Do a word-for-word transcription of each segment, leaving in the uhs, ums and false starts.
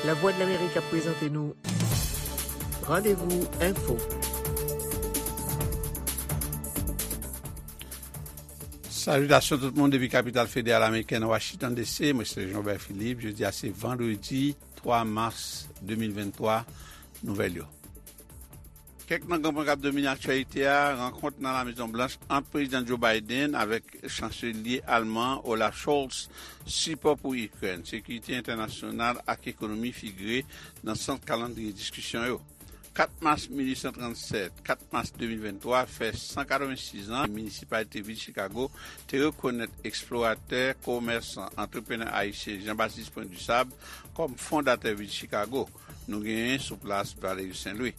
Lavwadlamerik ap prezante nou Randevou Enfo. Salitasyon tout moun depi kapital federal amerikèn Washington D C. Mwen se Jean Robert Philippe. Jodi a se vandredi twa mas de mil venntwa. Nouvèl yo. Kèk nan gran pwen k ap domine aktyalite a, rankont nan La Mezon Blanch ant Prezidan Joe Biden avèk Chanselye Alman Olaf Scholz, sipò pou Ikrèn, sekirite entènasyonal ak ekonomi figire nan sant kalandriye diskisyon yo. Kat mas mil uit san trannsèt, kat mas de mil venntwa fè san katrevensis an, minisipalite vil Chicago te rekonèt eksploratè, komèsan, antreprenè ayisyen Jean Baptiste Point du Sable kòm fondatè vil Chicago. Nou genyen sou plas Valery Saint Louis.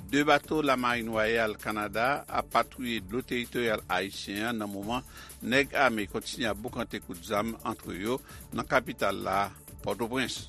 De bato Lamarin Wayal Kanada ap patwouye dlo teritoryal ayisyen an nan moman nèg ame kontinye ap boukante kout zam antre yo nan kapital la, Pòtoprens.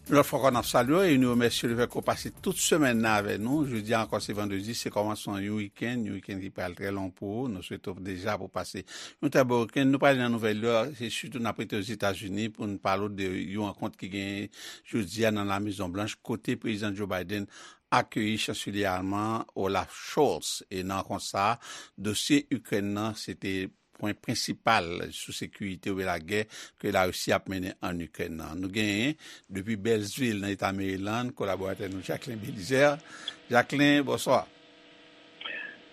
Yon lòt fwa ankò, n ap salye w e nou remèsye w lefètke w pase tout semèn nan avèk nou. Jodi a ankò, se vandredi, se kòmansman yon wikenn, yon wikenn ki pral trè long pou ou. Nou swete w deja pou w pase yon trè bon wikenn. Nou prale nan nouvèl yo, se sitou n ap rete Ozetazini pou n pale w de yon rankont ki genyen jodi a nan La Mezon Blanch, kote Prezidan Joe Biden akeyi Chanselye alman Olaf Scholz. E nan rankont sa a, dosye Ikrèn nan, se te pwen prensipal sou sekirite oubyen lagè ke Larisi ap mennen ann Ikrèn nan. Nou genyen, depi Bèlsvil, nan eta Maryland, kolaboratè nou Jacquelin Belizaire. Jacquelin, bonswa.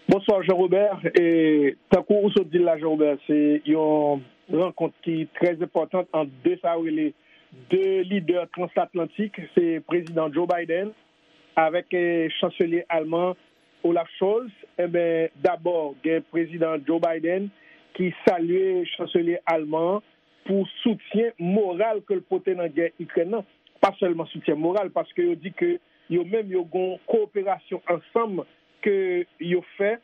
Bonswa, Jean Robert. E, tankou ou sot di l la, Jean Robert, se yon rankont ki trè enpòtan ant de sa yo rele de lidè transatlantik. Se Prezidan Joe Biden avèk, eh, Chanselye alman Olaf Scholz. Enben, dabò, gen Prezidan Joe Biden ki salye Chanselye alman an pou soutyen moral ke l pote nan gè Ikrèn nan. Pa sèlman soutyen moral, paske yo di ke yo menm yo gon kowoperasyon ansanm ke yo fè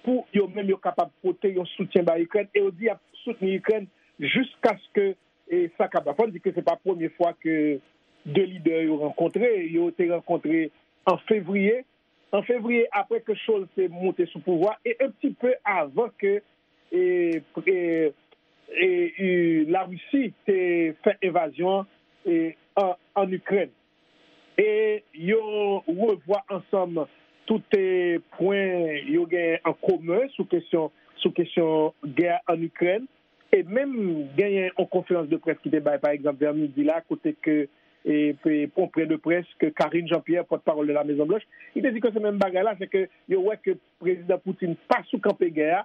pou yo menm yo kapab pote yon soutyen ba Ikrèn, e yo di y ap soutni Ikrèn jiskaske, e, sa kapab. Fò n di ke se pa premye fwa ke de lidè yo rankontre. Yo te rankontre an fevriye. An fevriye, apre ke Scholz te moute sou pouvwa, e un petit peu avan ke, e, e, e, e, Larisi te fè envazyon an, e, an, an Ikrèn. E yo revwa ansanm tout, e, pwen yo gen an komen sou kesyon, sou kesyon gè an Ikrèn. E menm genyen yon konferans de près ki te bay, pa egzanp, vè midi la, kote ke, e, pe-, konpren de près ke Karine Jean-Pierre, pòtpawòl de la Mezon Blanch, li te di ke se menm bagay la, se ke yo wè ke Prezidan Putin pa sou kanpe gè a,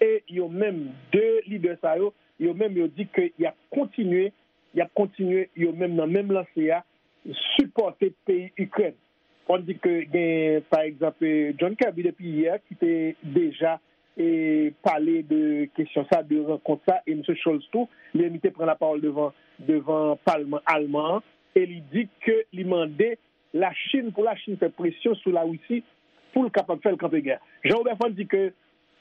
e yo menm, de lidè sa yo, yo menm yo di ke y ap kontinye, y ap kontinye, yo menm nan menm lanse a, sipòte peyi Ikrèn. Fò n di ke gen, pa egzanp, e, John Kirby depi yè ki te deja, e, pale de kesyon sa, de rankont sa, e misye Scholz tou, li menm li te pran lapawòl devan, devan palman alman an, e li di ke li mande Lachin, pou Lachin fè presyon sou Larisi pou l kapab fè l kanpe gè. Jean Robert, fò n di ke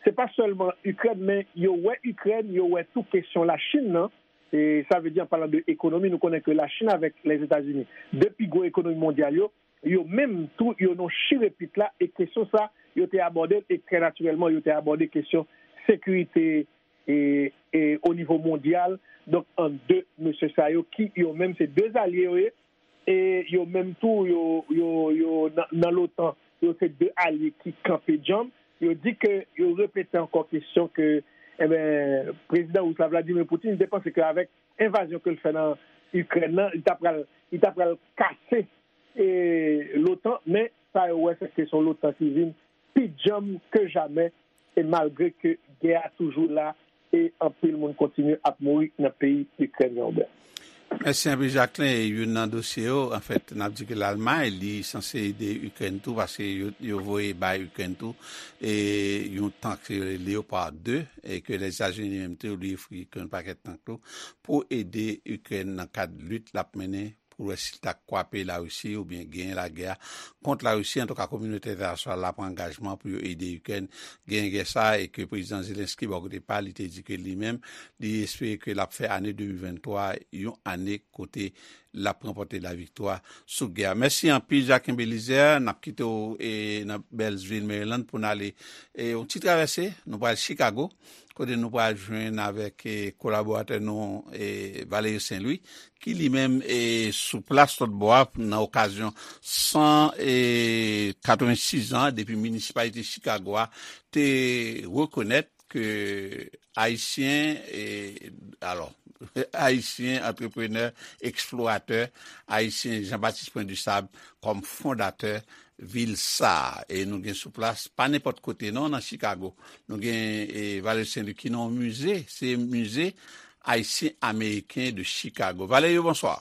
se pa sèlman Ikrèn, men yo wè Ikrèn, yo wè tou kesyon Lachin nan. E sa vle di, an palan de ekonomi, nou konnen ke Lachin avèk Lèzetazini, de pi gwo ekonomi mondyal yo, yo menm tou, yo nan chirepit la, e kesyon sa, yo te abòde l, e trè natirèlman, yo te abòde kesyon sekirite e, e o nivo mondyal. Donk, ant de mesye sa yo, ki yo menm se de alye yo ye, e yo menm tou, yo, yo, yo nan, nan l'OTAN, yo se de alye ki kanpe djanm. Yo di ke, yo repete ankò kesyon ke, enben, prezidan ris la, Vladimir Putin, li te panse ke avèk envazyon ke l fè nan Ikrèn nan, li ta pral, li ta pral kase, e, l'OTAN, men sa yo wè, se ke se yon l'OTAN ki vin pi djanm ke jamè, e malgre ke gè a toujou la, e anpil moun kontinye ap mouri nan peyi Ikrèn, Jean Robert. Mèsi anpil, Jacquelin. E youn nan dosye yo, anfèt, n ap di ke Lalmay, li sanse ede Ikrèn tou, paske yo, yo voye bay Ikrèn tou, e yon tank, se Leopard de, e ke Lèzetazini menm tou, li ofri Ikrèn yon pakèt tank tou, pou ede Ikrèn nan kad lit l ap mennen pou wè si l ta kwape Larisi oubyen genyen lagè a kont Larisi. Antouka, kominote entènasyonal la pran angajman pou yo ede Ikrèn genyen gè sa a, e ke prezidan Zelensky, bò kote pa l, li te di ke li menm, li espere ke l ap fè ane de mil venntwa yon ane kote l ap ranpòte laviktwa sou gè a. Mèsi anpil, Jacques Belizaire. N ap kite w e, nan Bèlsvil, Maryland, pou n ale e, yon ti travèse. Nou pral Chicago, kote nou pral jwenn avèk e, kolaboratè nou, e, Valerio Saint-Louis, ki li menm e, sou plas lòt bò a nan okazyon san e, katrevensis an depi minisipalite Chicago a te rekonèt ke Ayisyen, e, alò, Ayisyen, antreprenè, eksploratè, Ayisyen Jean-Baptiste Point du Sable kòm fondatè vil sa a. E nou gen sou plas, pa nenpòt kote non, nan Chicago. Nou gen e, Valerio Saint-Louis ki nan yon mize, se Mize Ayisyen Ameriken de Chicago. Valerio, bonswa.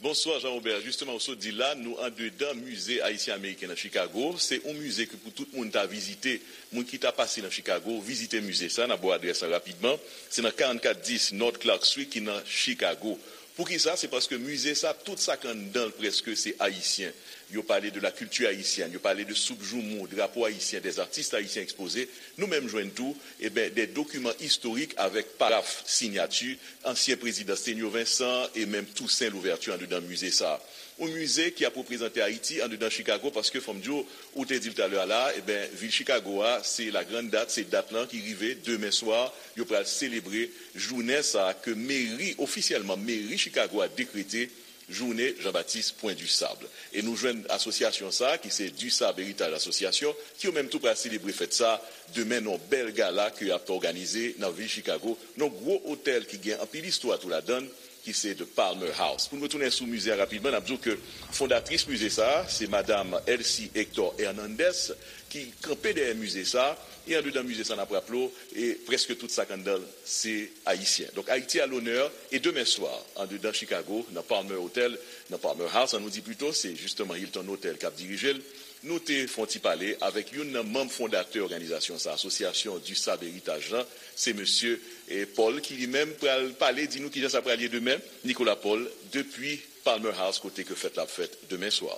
Bonswa Jean Robert, jisteman ou sot di la, nou andedan Mize Ayisyen Ameriken nan Chicago. Se yon mize ke pou tout moun ta vizite. Moun ki ta pase nan Chicago, vizite mize sa, n ap ba w adrès lan rapidman. Se nan karannkat dis North Clark Street ki nan Chicago. Poukisa? Se paske mize sa, tout sa k anndan l prèske se ayisyen. Yo pale de la culture haïtienne, yo pale de soup joumou, drapo ayisyen, des artistes haïtiens exposés. Nou menm jwenn tou, eben, des documents historiques avec paraph, sinyati ansyen prezidan Sténio Vincent e menm Toussaint Louverture andedan mize sa a. Yon mize ki ap reprezante Ayiti andedan Chicago, paske fò m di w, ou te di l talè a la, eben, vil Chicago a, se la grande date, se dat lan ki rive, demen swa, yo pral selebre jounen sa a ke meri, ofisyèlman, meri Chicago a dekrete jounen Jean-Baptiste Point du Sable. E nou jwenn asosyasyon sa a, ki se Du Sable Héritage Association, ki yo menm tou pral selebre fèt sa a demen nan yon bèl gala ke y ap òganize nan vil Chicago, nan yon gwo otèl ki gen anpil istwa tou ladan l, ki se The Palmer House. Pou n retounen sou mize a rapidman, n ap di w ke fondatris mize sa a, se madam Elsie Hector Hernandez, ki kanpe dèyè mize sa a, e andedan mize sa a, n ap raple w, e prèske tout sa k anndan l, se ayisyen. Donk, Ayiti à l'honneur, e demen swa, andedan Chicago, nan Palmer Hotel, nan Palmer House, an nou di pito, se jisteman Hilton Hotel k ap dirije l, nou te fè yon ti pale avèk youn nan manm fondatè òganizasyon sa, Asosyasyon Du Sable Héritage lan, se mesye, e, Paul, ki li menm pral pale, di nou kijan sa pral ye demen, Nicolas Paul, depi Palmer House, kote ke fèt la ap fèt demen swa.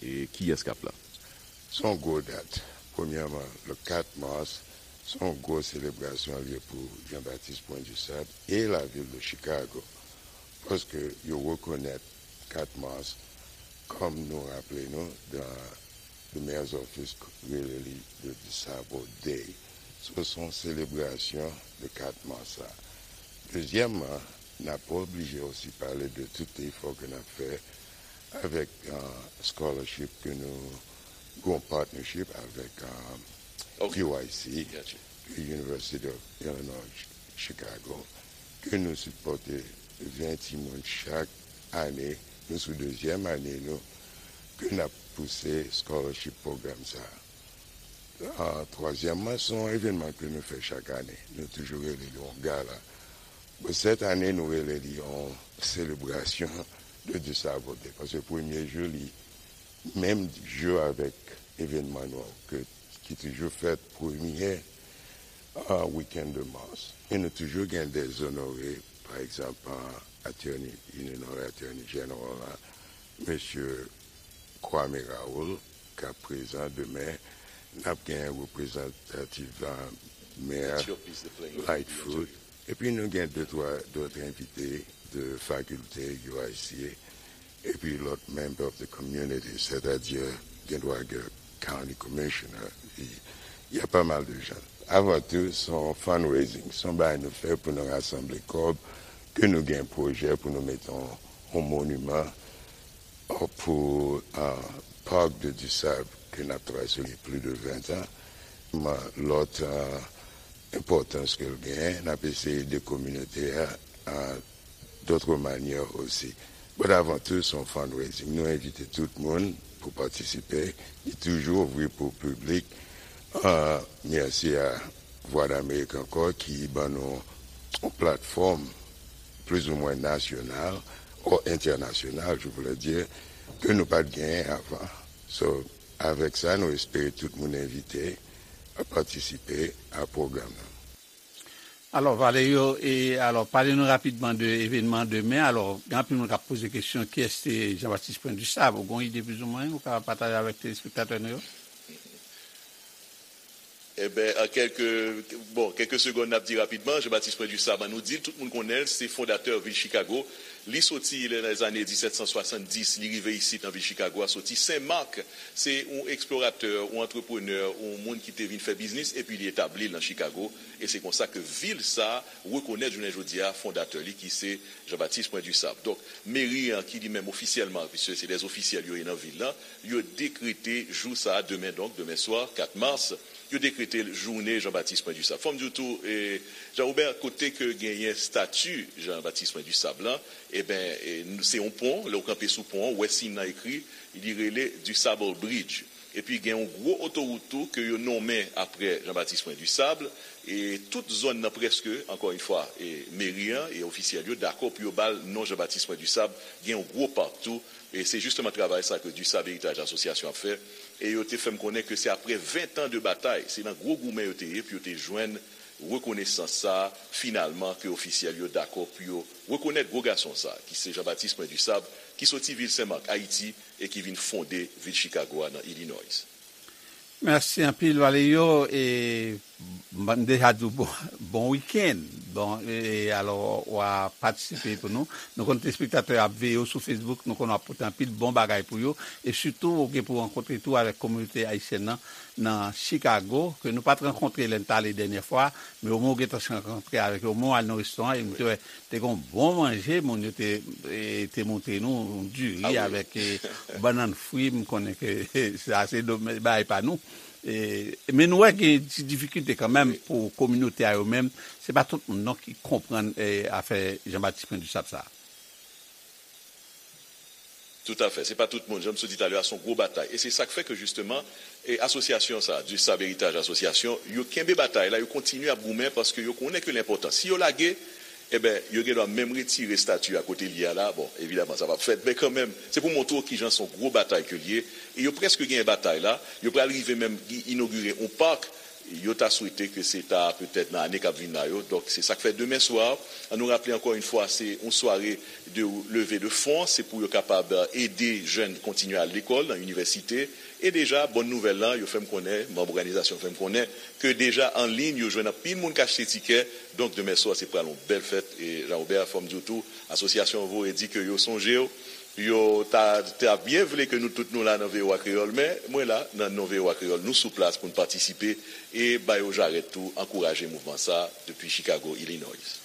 E kiyès k ap la? Se yon gwo dat. Premyèman, le kat mas, se yon gwo selebrasyon l ye pou Jean-Baptiste Point du Sable e lavil de Chicago. Paske yo rekonèt kat mas, kòm nou raple nou, dan The Mayor's Office rele li the Disabled Day. So, se yon selebrasyon de kat mas la. Dezyèmman, n ap oblije osi pale de tout efò ke n ap fè avèk uh, scholarship ke nou gen yon partnership avèk uh, U I C, University of Illinois Chicago, ke nou sipòte ven timoun chak ane. Nou sou dezyèm ane nou ke n ap pouse scholarship pwogram sa a. Uh, twazyèmman, se yon evènman ke nou fè chak ane. Nou toujou rele li yon gala. Bon, sèt ane, nou rele li yon selebrasyon de Disabled Day. Paske premye jou, li menm jou avèk evènman nou an, ke, ki toujou fèt premye uh, wikenn de mas. E nou toujou gen de zonore, pa egzanp, uh, attorney, Illinois Attorney General la, mesye Kwame Raoul, k ap prezan demen. N ap gen reprezantatif uh, mè Lightfoot. Epi nou gen de twa dòt envite de fakilte U I C A, epi lòt member of the community, sètadi gen dwa gen county commissioner, y a pa mal de jan. Avan tou, se yon fundraising, se yon bagay nou fè pou nou rasanble kòb, ke nou gen pwojè pou nou mete yon, yon moniman pou uh, Parc de Dussable ke n ap travay sou li plis de ven tan. Lòt uh, enpòtans ke l genyen, n ap eseye ede kominote a uh, dòt manyè osi. But avan tou, se yon fundraising. Nou envite tout moun pou patisipe. Li toujou ouvri pou piblik. Uh, mèsi a Vwa Damerik ankò ki ban nou yon platfòm plizoumwen nasyonal o entènasyonal, je voulais dire, ke nou pa t genyen avan. So, avèk sa, nou espere tout moun envite a patisipe a pwogram nan. Alò, Valerio, e alò, pale nou rapidman de evènman demen. Alò, gen anpil moun k ap poze kesyon, kiyès se Jean-Baptiste Point du Sable? Ou gen yon ide plizoumwen ou ka pataje avèk telespektatè nou yo? Eben, an kèlke, bon, kèlke segonn, n ap di rapidman, Jean-Baptiste Point du Sable, nou di l, tout moun konnen l, se fondatè vil Chicago. Li soti nan lèzane disèt san swasanndis, li rive isit nan vil Chicago a, soti Sen Mak. Se yon eksploratè, yon antreprenè, yon moun ki te vin fè biznis, epi li etabli l nan Chicago. E se konsa ke vil sa a rekonèt jounen jodi a fondatè li ki se Jean-Baptiste Point du Sable. Donk, meri an ki li menm ofisyèlman, piske se dè ofisyèl yo ye nan vil lan, yo dekrete jou sa a, demen donk, demen swa, kat mas, yo dekrete jounen Jean-Baptiste Point du Sable. Fò m di w tou, e, Jean Robert, kote ke genyen stati Jean-Baptiste Point du Sable lan, eben, e, se yon pon, lè w kanpe sou pon an, ou wè siy nan ekri, li rele Du Sable Bridge. Epi gen yon gwo otowout tou ke yo nonmen apre Jean-Baptiste Point du Sable, e tout zòn nan prèske, ankò yon fwa, e meri an e ofisyèl yo dakò pou yo ba l non Jean-Baptiste Point du Sable, gen yon gwo pak tou, e se jisteman travay sa ke Du Sable Héritage Association ap fè, e yo te fè m konnen ke se apre ven tan de batay, se nan gwo goumen yo te ye pou yo te jwenn rekonesans sa a, finalman, ke ofisyèl yo dakò pou yo rekonèt gwo gason sa a, ki se Jean-Baptiste Point du Sable, ki soti vil Sen Mak, Ayiti, e ki vin fonde vil Chicago a nan Illinois. Mèsi anpil, Valerio. E m deja di w bon, bon wikenn. Bon, e alò, w a patisipe pou nou. Nou konn telespektatè yo ap veye w sou Facebook, nou konn w ap pote anpil bon bagay pou yo. E sitou, ou gen pou rankontre tou avèk kominote ayisyèn nan nan Chicago, ke nou pa t rankontre lè n t ale dènyè fwa, men omwen ou gentan rankontre avèk yo, omwen w al nan restoran, e m te wè te gen yon bon manje, moun yo te, e, te montre nou, yon diri avèk, e, bannann fri, m konnen ke sa se do-, bagay pa nou. E, men nou wè gen ti difikilte kanmenm pou kominote a yo menm, se pa tout moun non ki konprann, e, afè Jean Baptiste Point du Sable sa a. Toutafè. Se pa tout moun, jan m sot di talè a, se yon gwo batay. E se sa k fè ke jisteman, e asosyasyon sa a, Du Sable Héritage Association, yo kenbe batay la, yo kontinye ap goumen paske yo konnen ke l enpòtan. Si yo lage, eben, yo gendwa menm retire estati a kote l ye a la. Bon, evidaman, sa p ap fèt, men kanmenm, se pou montre w kijan se yon gwo batay ke l ye. E yo prèske genyen batay la, yo pral rive menm inogire yon pak, yo ta swete ke se ta petèt nan ane k ap vin la yo. Donk, se sa k fè demen swa, an nou raple ankò yon fwa, se yon sware de leve de fon, se pou yo kapab ede jèn kontinye al lekòl nan inivèsite. E deja, bòn nouvèl lan, yo fè m konnen, manm òganizasyon fè m konnen, ke deja an liy, yo jwenn anpil moun k achte tikè. Donk, demen swa, se pral yon bèl fèt. E Jean Robert, fò m di w tou, asosyasyon an voye di ke yo sonje w, yo ta, ta byen vle ke nou tout nou la nan V O A Kreyòl, men mwen la, nan non V O A Kreyòl, nou sou plas pou n patisipe e ba yo jarèt tou, ankouraje mouvman sa a depi Chicago, Illinois.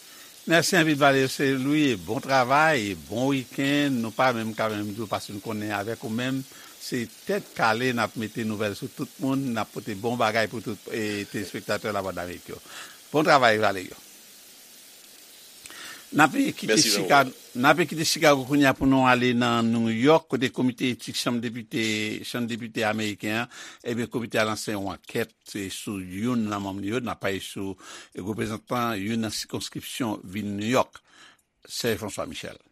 Mèsi anpil, Valerio Saint Louis, e bon travay, e bon wikenn. Nou pa menm ka menm di w paske n konnen avèk ou menm, se tèt kale n ap mete nouvèl sou tout moun, n ap pote bon bagay pou tout, e, telespektatè Lavwadlamerik yo. Bon travay, Valerio. N ape kite Chicago, n ape kite Chicago kounye a pou nou ale nan New York, kote komite etik chanm depite, chanm depite ameriken an, ebyen, komite a lanse yon ankèt, e, sou youn nan manm li yo, n ap pale sou, e, reprezantan youn nan sikonskripsyon vil New York, Serge François Michel.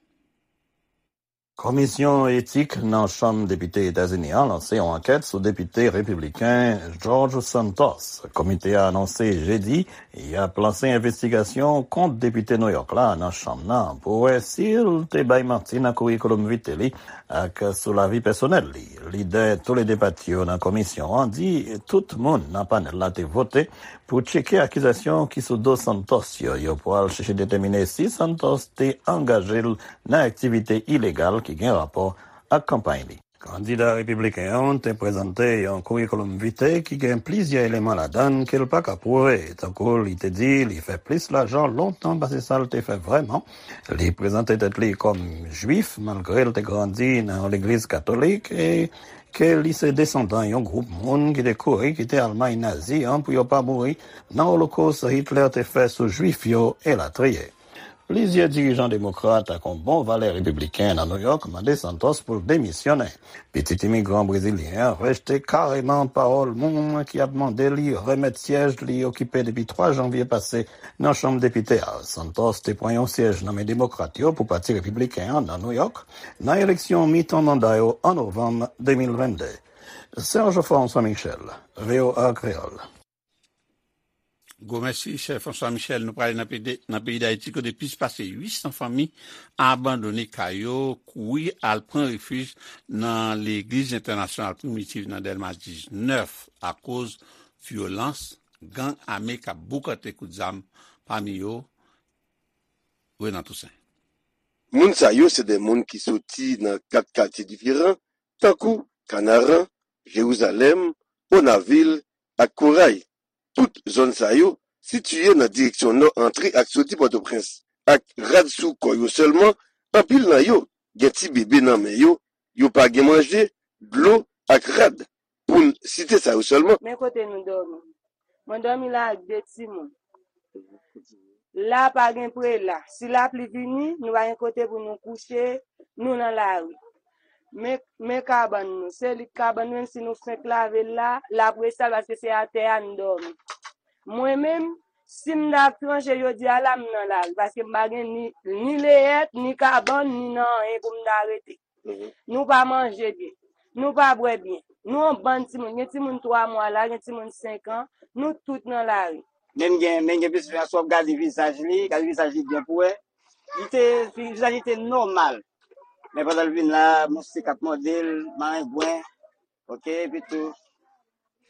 Komisyon Etik nan Chanm Depite Etazini an lanse yon ankèt sou depite repibliken George Santos. Komite a anonse jedi y ap lanse envestigasyon kont depite Nouyòk la nan chanm nan pou wè si l te bay manti nan kourikoulòm vite li ak sou lavi pèsonèl li. Lidè toulede pati yo nan komisyon an di tout moun nan panèl la te vote pou tcheke akizasyon ki sou do Santos yo. Yo pral chèche detèmine si Santos te angaje l nan aktivite ilegal ki gen rapò ak kanpay li. Kandida repibliken an te prezante yon kourikoulòm vite ki gen plizyè eleman ladan l ke l pa ka pwouve, tankou li te di li fè plis lajan lontan pase sa l te fè vrèman, li prezante tèt li kòm Jwif malgre l te grandi nan yon legliz katolik, e ke li se desandan yon gwoup moun ki te kouri kite Almay nazi an pou yo pa mouri nan Olokòs Hitler te fè sou Jwif yo, elatriye. Plizyè dirijan demokrat ak yon bon valè repibliken nan Nouyòk mande Santos pou l demisyonnen. Pitit imigran brezilyen an rejte kareman pawòl moun ki ap mande li remèt syèj li okipe depi twa janvye pase nan Chanm Depite a. Santos te pran yon syèj nan men demokrat yo pou Pati Repibliken an nan Nouyòk nan eleksyon mitan manda yo an novanm de mil vennde. Serge François Michel, V O A Kreyòl. Gwo mèsi, chè François Michel. Nou prale nan peyi, nan peyi Dayiti, kote plis pase uit san fanmi abandone kay yo, kouri al pran refij nan Legliz Entènasyonal Primitiv nan Dèlma diznèf akoz vyolans gang ame k ap boukante kout zam, pami yo Renan Toussaint. Moun sa yo se de moun ki soti nan kat katye diferan, tankou Kanaran, Jerizalèm, Onavil ak Koray. Tout zòn sa yo sitiye nan direksyon nò antre ak soti Pòtoprens. Ak rad sou kò yo sèlman, anpil nan yo gen ti bebe nan men yo, yo pa gen manje, dlo ak rad, pou n site sa yo sèlman. Men kote nou dòmi. Mwen dòmi la ak de timoun. La pa gen prela. Si lapli vini, nou pa gen kote pou nou kouche, nou nan lari. Men, men kabann nou. Se lit kabann nou, menm si nou fenk lave l la, l ap resal paske se atè a n dòmi. Mwen menm, si m ta tranche jodi a la, m nan lari, paske m pa gen ni, ni leyèt, ni kabann, ni nan anyen pou m ta rete. Nou pa manje byen. Nou pa bwè byen. Nou yon bann timoun. Gen timoun twa mwa la, gen timoun senk an. Nou tout nan lari. Men gen, men gen plis fè, si w ap gade vizaj li, gade vizaj li byen pou wè. Li te, vizaj li te nòmal. Men pandan l vin la, mouchik ap mòde l, marengwen, oke, epi tou,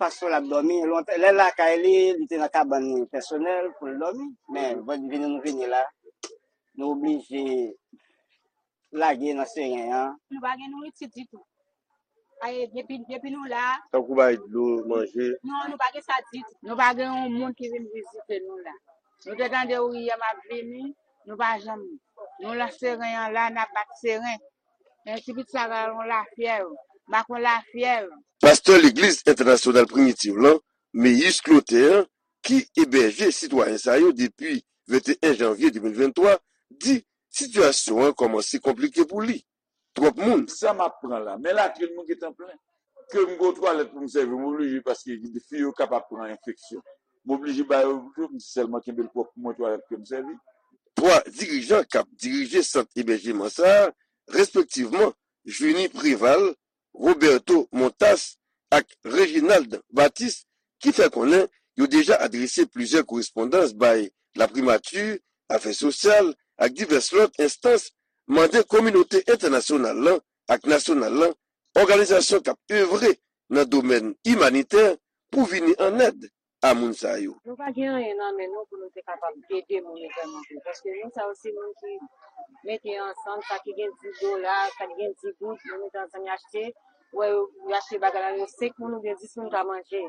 fason l ap dòmi. Lontan, lè lakay li, li te nan kabann li pèsonèl pou l dòmi. Men, vini nou vini la, nou oblije lage nan seren an. Nou pa gen nouriti ditou. Aye, depi, depi nou la. Tankou bay dlo, manje. Non, nou pa gen sa ditou. Nou pa gen yon moun ki vin vizite nou la. Nou te tande Ouriyèm ap vini, nou pa janm. Nou lan seren an la, n ap bat seren. Men ti pitit sa ka yon lafyèv, m pa konn lafyèv. Pastè Legliz Entènasyonal Primitiv lan, Meyis Clotaire, ki ebèje sitwayen sa yo depi venteyen janvye de mil venntwa, di sitiyasyon an kòmanse konplike pou li. Twòp moun. Sa m ap pran la, men latrin mwen gentan plen. Ke m gen twalèt pou m sèvi, m oblije paske fi yo kapab pran enfeksyon. M oblije ba yo tou, m sèlman kenbe l pwòp pou mwen twalèt ke m sèvi. Twa dirijan k ap dirije sant ebèjeman sa a, respektivman, Junie Préval, Roberto Montas ak Reginald Baptiste, ki fè konnen yo deja adrese plizyè korespondans bay laprimati, afè sosyal ak divès lòt enstans, mande kominote entènasyonal lan ak nasyonal lan, òganizasyon k ap evre nan domèn imanitè pou vini an èd a moun sa yo. Nou pa gen anyen nan men nou pou nou te kapab ede moun yo vrèman vre. Paske moun sa yo se moun ki mete ansanm, sa ki gen dis dola, sa ki gen dis goud, yo mete ansanm, yo achte, wè, yo achte bagay la, yo senk moun oubyen dis moun ka manje.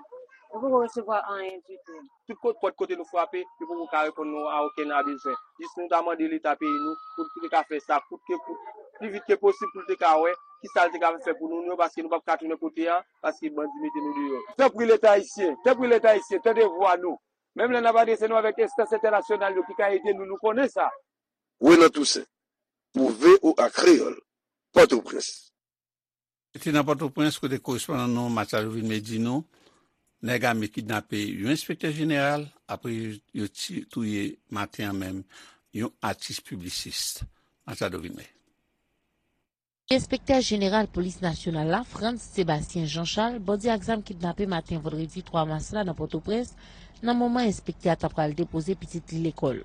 Nou poko resevwa anyen ditou. Tout kot, pòt kote nou frape, yo poko ka reponn nou a okenn a bezwen. Jis nou ta mande Leta peyi nou pou l te ka fè sa kout ke kout, pi vit ke posib pou l te ka wè kisa l te ka fè pou nou, nou, paske nou p ap ka tounen kote a, paske bandi mete nou deyò. Tanpri Leta ayisyen, tanpri Leta ayisyen, tande vwa nou. Menm lè n ap adrese nou avèk enstans entènasyonal yo ki ka ede nou, nou konnen sa. Renan Toussaint, pou V O A Kreyòl, Pòtoprens. Se te nan Pòtoprens kote korespondan nou Machado Vilmé di nou, nèg ame kidnape yon enspektè jeneral, apre yo ti-, touye maten an menm yon atis piblisis. Machado Vilmé. Enspektè jeneral polis nasyonal la, Frantz Sébastien Jean Charles, bandi ak zam kidnape maten vandredi twa mas la nan Pòtoprens, nan moman enspektè a ta pral depoze pitit li lekòl.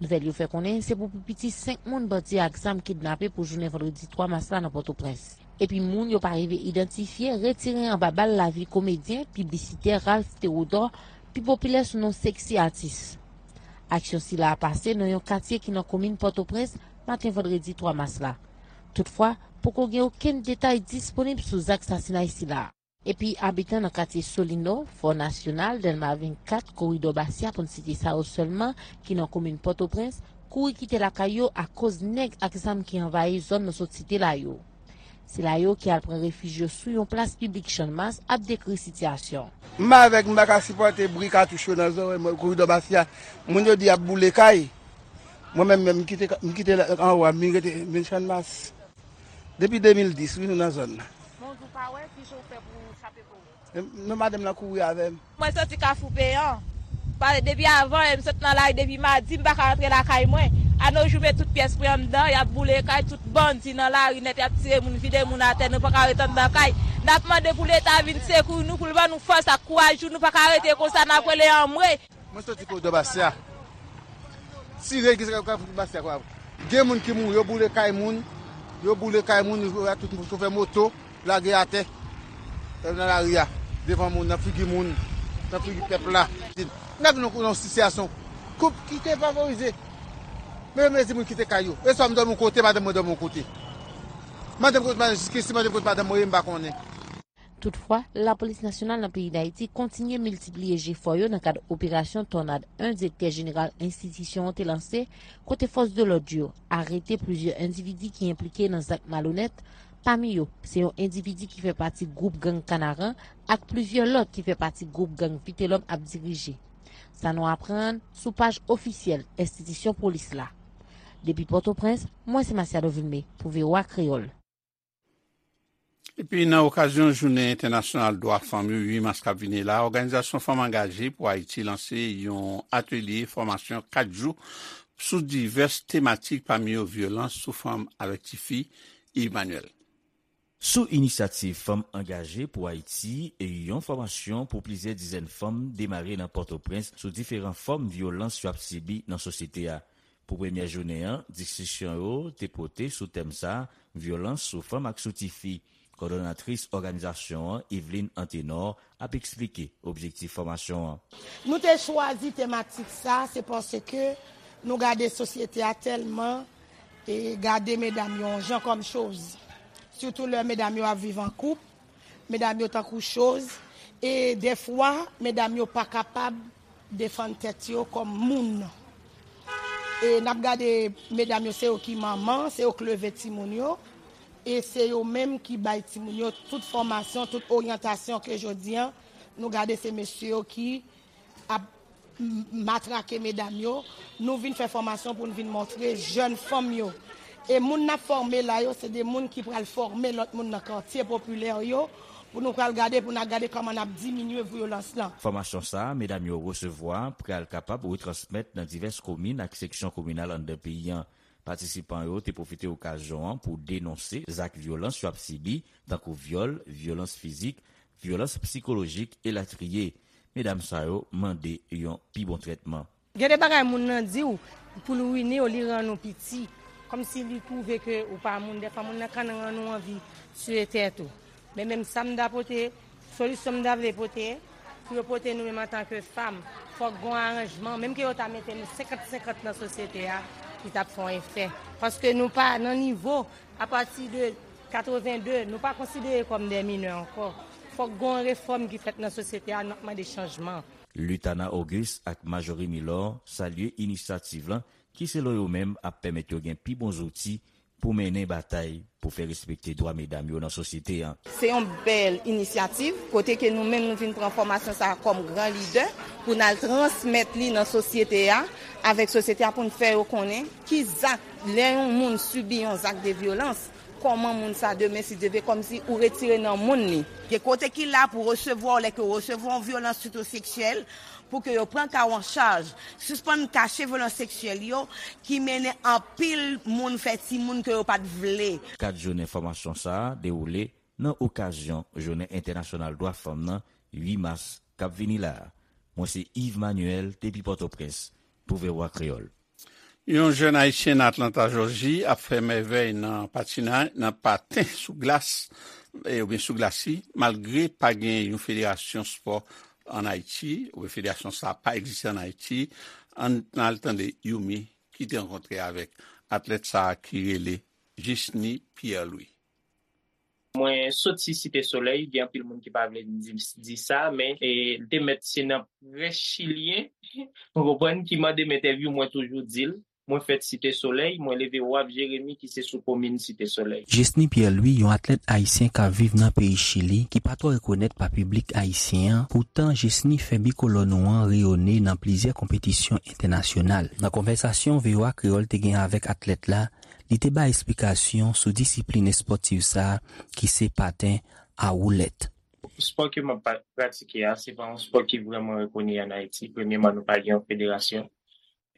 Nouvèl yo fè konnen se pou pi piti senk moun bandi ak zam kidnape pou jounen vandredi twa mas la nan Pòtoprens. Epi moun yo pa rive idantifye retire anba bal lavi komedyen, piblisitè Ralph Théodore, pi popilè sou non Sexy Artist. Aksyon sila a pase nan yon katye ki nan komin Pòtoprens, maten vandredi twa mas la. Toutfwa, poko gen okenn detay disponib sou zak sasinay sila a. Epi abitan nan katye Solino, Fò Nasyonal, Dèlma vennkat, Koridò Basya, pou n site sa yo sèlman, ki nan komin Pòtoprens, kouri kite lakay yo akoz nèg ak zam ki anvayi zòn nou sot site la yo. Sila yo ki al pran refij yo sou yon plas piblik Channmas ap dekri sitiyasyon. M avèk, m pa ka sipòte bri katouch yo nan zòrèy mwen, Koridò Basya. Moun yo di y ap boule kay. Mwen menm, menm, m kite, m kite anwo a, m vin rete, m vin Channmas. Depi de mil dis, wi, nou nan zòn nan. Bonjou, pa wè, kijan w fè pou w chape kò w? E, non, madanm nan kouri avè m. Mwen soti Kafou Peyan. Pa, depi avan, e, m sot nan lari depi madi, m pa ka rantre lakay mwen. Anojou, men tout pyès mwen anndan, y ap boule kay, tout bandi nan lari nèt, y ap tire moun, vide moun atè, nou pa ka ret anndan kay. N ap mande pou Leta vin sekwi nou, pou l ban nou fòs ak kouraj, nou pa ka rete konsa, n ap rele anmwe. Mwen soti koridò Basya. Tire ki se ka fout Basya kwa. Gen moun ki mouri, yo boule kay moun, yo boule kay moun, yo tout moun chofè moto, lage atè nan lari a, devan moun, nan figi moun, nan figi pèp la. Nèg nou nan sitiyasyon koup ki te favorize. Men mezi moun kite kay yo. E swa m dòmi yon kote, madanm mwen dòmi yon kote. Madanm kote, madanm, jiskisi madanm kote madanm mwen ye, m pa konnen. Toutfwa, Lapolis Nasyonal nan peyi Dayiti kontinye miltipliye jefò yo nan kad operasyon Tònad en direktè jeneral enstitisyon an te lanse, kote fòs de lòd yo arete plizyè endividi ki enplike nan zak malonèt, pami yo, se yon endividi ki fè pati gwoup gang Kanaran ak plizyè lòt ki fè pati gwoup gang Vitelòm ap dirije. Sa nou aprann sou paj ofisyèl enstitisyon polis la. Depi Pòtoprens, mwen se Masiado Vilmé pou V O A Kreyòl. Epi nan okazyon Jounen Entènasyonal Dwa Fanm yo uit mas k ap vini la, Òganizasyon Fanm Angaje pou Ayiti lanse yon atelye fòmasyon kat jou sou divès tematik, pami yo vyolans sou fanm avèk tifi. Yves Manuel. Sou inisyativ Fanm Angaje pou Ayiti, yon fòmasyon pou plizyè dizèn fanm demare nan Pòtoprens sou diferan fòm vyolans yo ap sibi nan sosyete a. Pou premyè jounen an, diskisyon yo te pote sou tèm sa a, vyolans sou fanm ak sou tifi. Kòdonatris òganizasyon an, Yveline Antenor, ap eksplike objektif fòmasyon an. Nou te chwazi tematik sa, se paske nou gade sosyete a tèlman e gade medam yo yon jan kòm choz. Sitou lè medam yo ap viv an koup, medam yo tankou choz, e dèfwa medam yo pa kapab defann tèt yo kòm moun. E n ap gade medam yo, se yo ki manman, se yo k leve timoun yo, e se yo menm ki bay timoun yo tout fòmasyon, tout oryantasyon ke jodi an nou gade se mesye yo ki ap matrake medam yo. Nou vin fè fòmasyon pou n vin montre jèn fanm yo. E moun n ap fòme la yo, se de moun ki pral fòme lòt moun nan katye popilè yo, pou nou pral gade, pou n a gade kòman n ap diminye vyolans lan. Fòmasyon sa a, medam yo resevwa, pral kapab retransmèt nan divès komin ak seksyon kominal anndan peyi an. Patisipan yo te pwofite okazyon an pou denonse zak vyolans yo ap sibi, tankou vyòl, vyolans fizik, vyolans sikolojik, elatriye. Medam sa yo mande yon pi bon trètman. Gen de bagay moun nan di w pou l wini w, li rann ou piti. Kòmsi li twouve ke ou pa moun. Dèfwa moun nan ka rann ou anvi tiye tèt ou. Men menm sa m ta pote, solisyon m ta vle pote, pou yo pote nou menm antanke fanm, fòk gon aranjman. Menm ke yo ta mete nou senkant senkant nan sosyete a, li t ap fè yon efè. Paske nou pa nan nivo, apati de katreven de, nou pa konsidere kòm de minè ankò. Fòk gon refòm ki fèt nan sosyete a, n ap mande chanjman. Lutana Auguste ak Marjorie Milor salye inisyativ lan ki selon yo menm ap pèmèt yo gen pi bon zouti pou mennen batay pou fè respekte dwa medam yo nan sosyete an. Se yon bèl inisyativ kote ke nou menm nou vin pran fòmasyon sa a kòm gran lidè pou n al transmèt li nan sosyete a, avèk sosyete a pou n fè yo konnen ki zak lè yon moun sibi yon zak de vyolans, kòman moun sa demen si Dye vle kòmsi ou retire nan moun li. Gen kote ki la pou resevwa w lè ke w resevwa yon vyolans sitou seksyèl, pou ke yo pran ka w an chaj, sispann kache vyolans seksyèl yo ki mennen anpil moun fè timoun ke yo pa t vle. Kat jounen fòmasyon sa a dewoule nan okazyon Jounen Entènasyonal Dwa Fanm nan uit mas k ap vini la a. Mwen se Yves Manuel depi Pòtoprens pou V O A Kreyòl. Yon jèn ayisyen nan Atlanta, Jòji, ap fè mèvèy nan patinay, nan paten sou glas, e, oubyen sou glasi, malgre pa gen yon federasyon spò ann Ayiti, oubyen federasyon sa a pa egziste ann Ayiti. Ann al tande Youmi ki te rankontre avèk atlèt sa a ki rele Jesny Pierre Louis. Mwen soti Site Solèy, gen anpil moun ki pa vle di, di sa, men e, l te mèt se nan près chilyen, ou konprann, ki mande m entèvyou, mwen toujou di l. Mwen fèt Site Solèy, mwen leve Waf Jeremi ki se sou komin Site Solèy. Jesny Pierre Louis, yon atlèt ayisyen k ap viv nan peyi Chili, ki pa twò rekonèt pa piblik ayisyen an, poutan Jesny fè bikolò nou an reyone nan plizyè konpetisyon entènasyonal. Nan konvèsasyon V O A Kreyòl te gen avèk atlèt la, li te bay esplikasyon sou disiplin espòtif sa a ki se paten a woulèt. Spò ke m ap pratike a, se pa yon spò ki vrèman rekoni ann Ayiti. Premyeman, nou pa gen yon federasyon.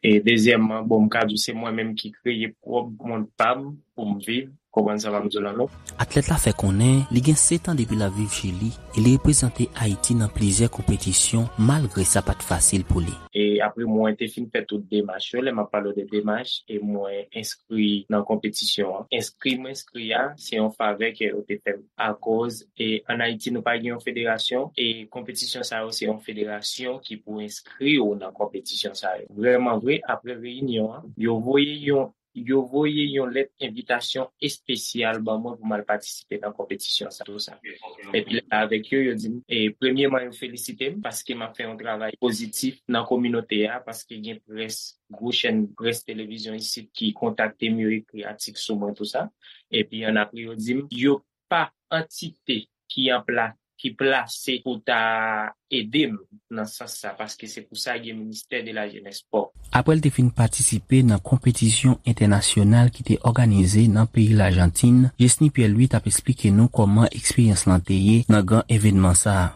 E dezyèmman, bon, m ka di w se mwen menm ki kreye pwòp mond pa m pou m viv. Konprann sa m ap di w la, non? Atlèt la fè konnen li gen sèt an depi l ap viv Chili e li reprezante Ayiti nan plizyè konpetisyon, malgre sa pa t fasil pou li. E apre mwen te fin fè tout demach yo, lè m ap pale w de demach, e mwen enskri nan konpetisyon an. Enskri m enskri a, se yon favè ke yo te fè m. Akoz, e ann Ayiti, nou pa gen yon federasyon, e konpetisyon sa yo, se yon federasyon ki pou enskri w nan konpetisyon sa yo. Vrèman vre, apre reyinyon an, yo voye yon yo voye yon lèt envitasyon espesyal ban mwen pou m al patisipe nan konpetisyon sa, tou sa. Epi lè avèk yo, yo di m, e, premyeman, yo felisite m paske m ap fè yon travay pozitif nan kominote a, paske gen près, gwo chèn près televizyon isit ki kontakte m, yo ekri atik sou mwen, tou sa. Epi ann apre, yo di m, yo pa antite ki an pla-, ki plase pou ta ede m nan sans sa, paske se pou sa gen ministè de la jenès, spò. Apre l te fin patisipe nan konpetisyon entènasyonal ki te òganize nan peyi Lajantin, Jesny Pierre Louis t ap esplike nou kòman eksperyans lan te ye nan gran evènman sa a.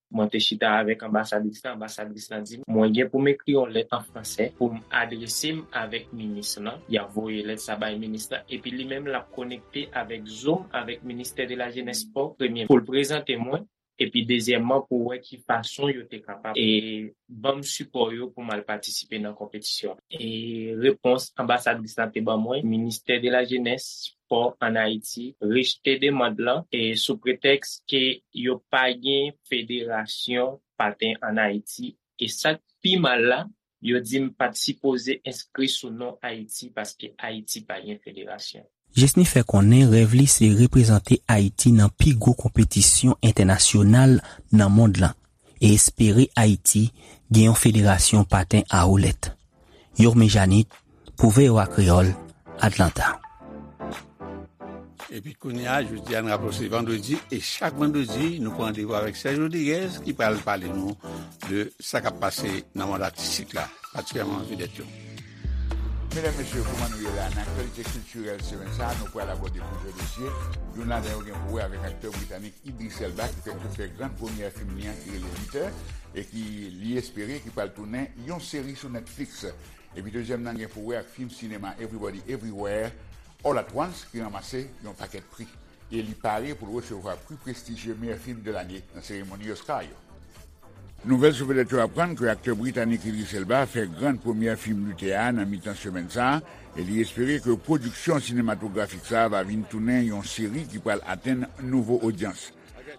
Mwen te chita avèk anbasadris la, anbasadris la di m, mwen gen pou m ekri yon lèt an fransè pou m adrese m avèk minis lan. Y ap voye lèt sa bay minis lan, epi li menm l ap konekte avèk Zoom avèk ministè de la jenès, spò, premye, pou l prezante mwen, epi dezyèmman, pou wè ki fason yo te kapab, e, ban m sipò yo pou m al patisipe nan konpetisyon. E repons anbasadris la te ban mwen, ministè de la jenès, spò ann Ayiti rejte demann lan, e sou pretèks ke yo pa gen federasyon paten ann Ayiti. E sa k pi mal la, yo di m pa t sipoze enskri sou non Ayiti paske Ayiti pa gen federasyon. Jesny fè konnen rèv li se reprezante Ayiti nan pi gwo konpetisyon entènasyonal nan mond lan e espere Ayiti gen yon federasyon paten a woulèt. Yorme Janit, pou V O A Kreyòl, Atlanta. Epi kounye a, jodi a, n raple w se vandredi, e chak vandredi, nou pran randevou avèk Serge Rodriguez, ki pral pale nou de sa k ap pase nan mond atistik la, patikilyèman vedèt yo. Medam, mesye, kòman nou ye la? Nan aktyalite kiltirèl semèn sa a, nou pral abòde plizyè dosye. Youn ladan yo gen pou wè avèk aktè britanik Idris Elba, ki fèk sot fè gran premyè fim li an, ki rele Luther, e ki li espere ki pral tounen yon seri sou Netflix. Epi dezyèm nan gen pou wè ak fim sinema Everybody Everywhere All at Once, ki ranmase yon pakèt pri. E li pare pou l resevwa pri prestijye meyè fim de lane nan seremoni Oscar yo. Nouvèl sou vedèt yo aprann ke aktè britanik Idris Elba fè gran premyè fim Luther a nan mitan semèn sa a, e li espere ke pwodiksyon sinematografik sa a va vin tounen yon seri ki pral atenn nouvo odyans.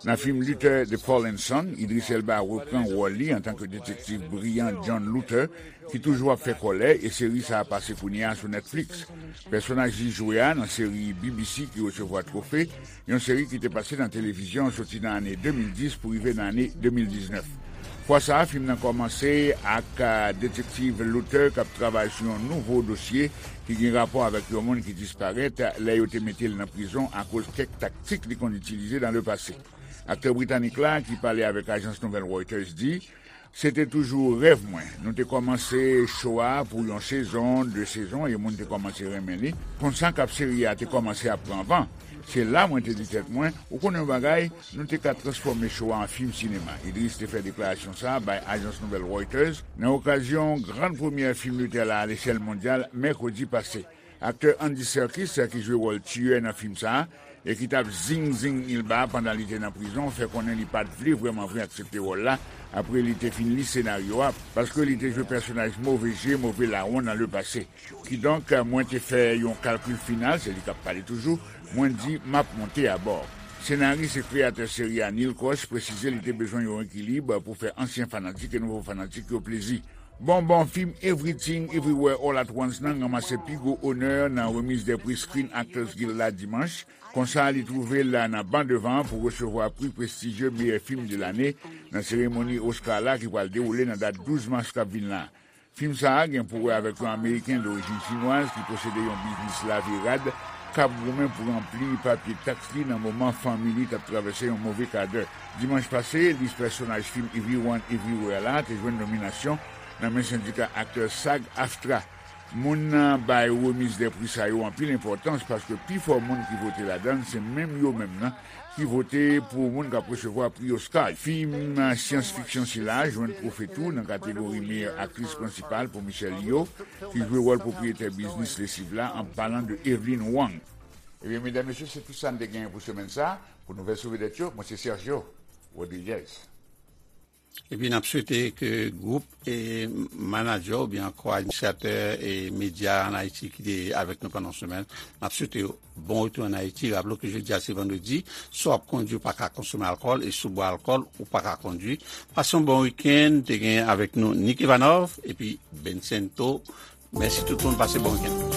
Nan fim Luther, The Fallen Son, Idris Elba repran wòl li antanke detektiv briyan John Luther, ki toujou ap fè kòlè, e seri sa a pase kounye a sou Netflix. Pèsonaj li jwe a nan seri B B C ki resevwa twofe, yon seri ki te pase nan televizyon soti nan ane de mil dis pou rive nan ane de mil diznèf. Fwa sa a, fim nan kòmanse ak, a, detektiv Luther k ap travay sou yon nouvo dosye ki gen rapò avèk yon moun ki disparèt lè yo te mete l nan prizon akoz kèk taktik li konn itilize nan lepase. Aktè britanik la, ki pale avèk ajans nouvèl Reuters, di, se te toujou rèv mwen. Nou te kòmanse cho a pou yon sezon, de sezon, e moun te kòmanse renmen li. Konsa k ap seri a te kòmanse ap pran van. Se la mwen te di tèt mwen, ou konnen yon bagay, nou te ka transfòme cho a an fim sinema. Idris te fè deklarasyon sa a bay ajans nouvèl Reuters nan okazyon gran premyè fim Luther la alechèl mondyal mèkredi pase. Aktè Andy Serkis, ki jwe wòl tiyè nan fim sa a, e ki t ap zing zing Elba pandan li te nan prizon, fè konnen li pa t vle vrèman vre aksepte wòl la apre li te fin li senaryo a, paske li te jwe pèsonaj move je, move lawon nan lepase. Kidonk, mwen te fè yon kalkil final, se li k ap pale toujou, mwen di, m ap monte abò. Senaris e kreyatè seri a, Neil Krosh, presize li te bezwen yon ekilib pou fè ansyen fanatik e nouvo fanatik yo plezi. Bon, bon, fim Everything Everywhere All at Once nan ranmase pi gwo onè nan remiz dè pri Screen Actors Guild la dimanch. Konsa, li twouve l nan ban devan pou resevwa pri prestijye meyè fim de lane nan seremoni Oscar la ki pral dewoule nan dat douz mas k ap vin la. Fim sa a gen pou wè avèk yon Ameriken dorijin chinwaz ki posede yon biznis lave rad k ap goumen pou ranpli papye taks li nan moman fanmi li t ap travèse yon move kadè. Dimanch pase, lis pèsonaj fim Everyone Everywhere la te jwenn nominasyon nan men sendika aktè SAG-AFTRA. Moun nan bay remiz dè pri sa yo anpil enpòtans paske pifò moun ki vote ladan l se menm yo menm nan ki vote pou moun k ap resevwa pri Oscar. Fim syans fiksyon sila jwenn twofe tou nan kategori meyè aktris prensipal pou Michelle Yeoh, ki jwe wòl pwopriyetè biznis lesiv la, an palan de Evelyn Wang. Ebyen, medam, mesye, se tout sa n te genyen pou semèn sa. Pou nouvèl sou vedèt yo, mwen se Sergio Rodriguez. Epi n ap swete ke gwoup e manadjè oubyen ankò administratè e medya ann Ayiti ki te avèk nou pandan semèn, n ap swete yo bon retou ann Ayiti. Raple w ke jodi a se vandredi, si w ap kondwi ou pa ka konsome alkòl e si w bwè alkòl ou pa ka kondwi. Pase yon bon wikenn, te gen avèk nou Nick Ivanov epi Bencento. Mèsi tout moun, pase bon wikenn.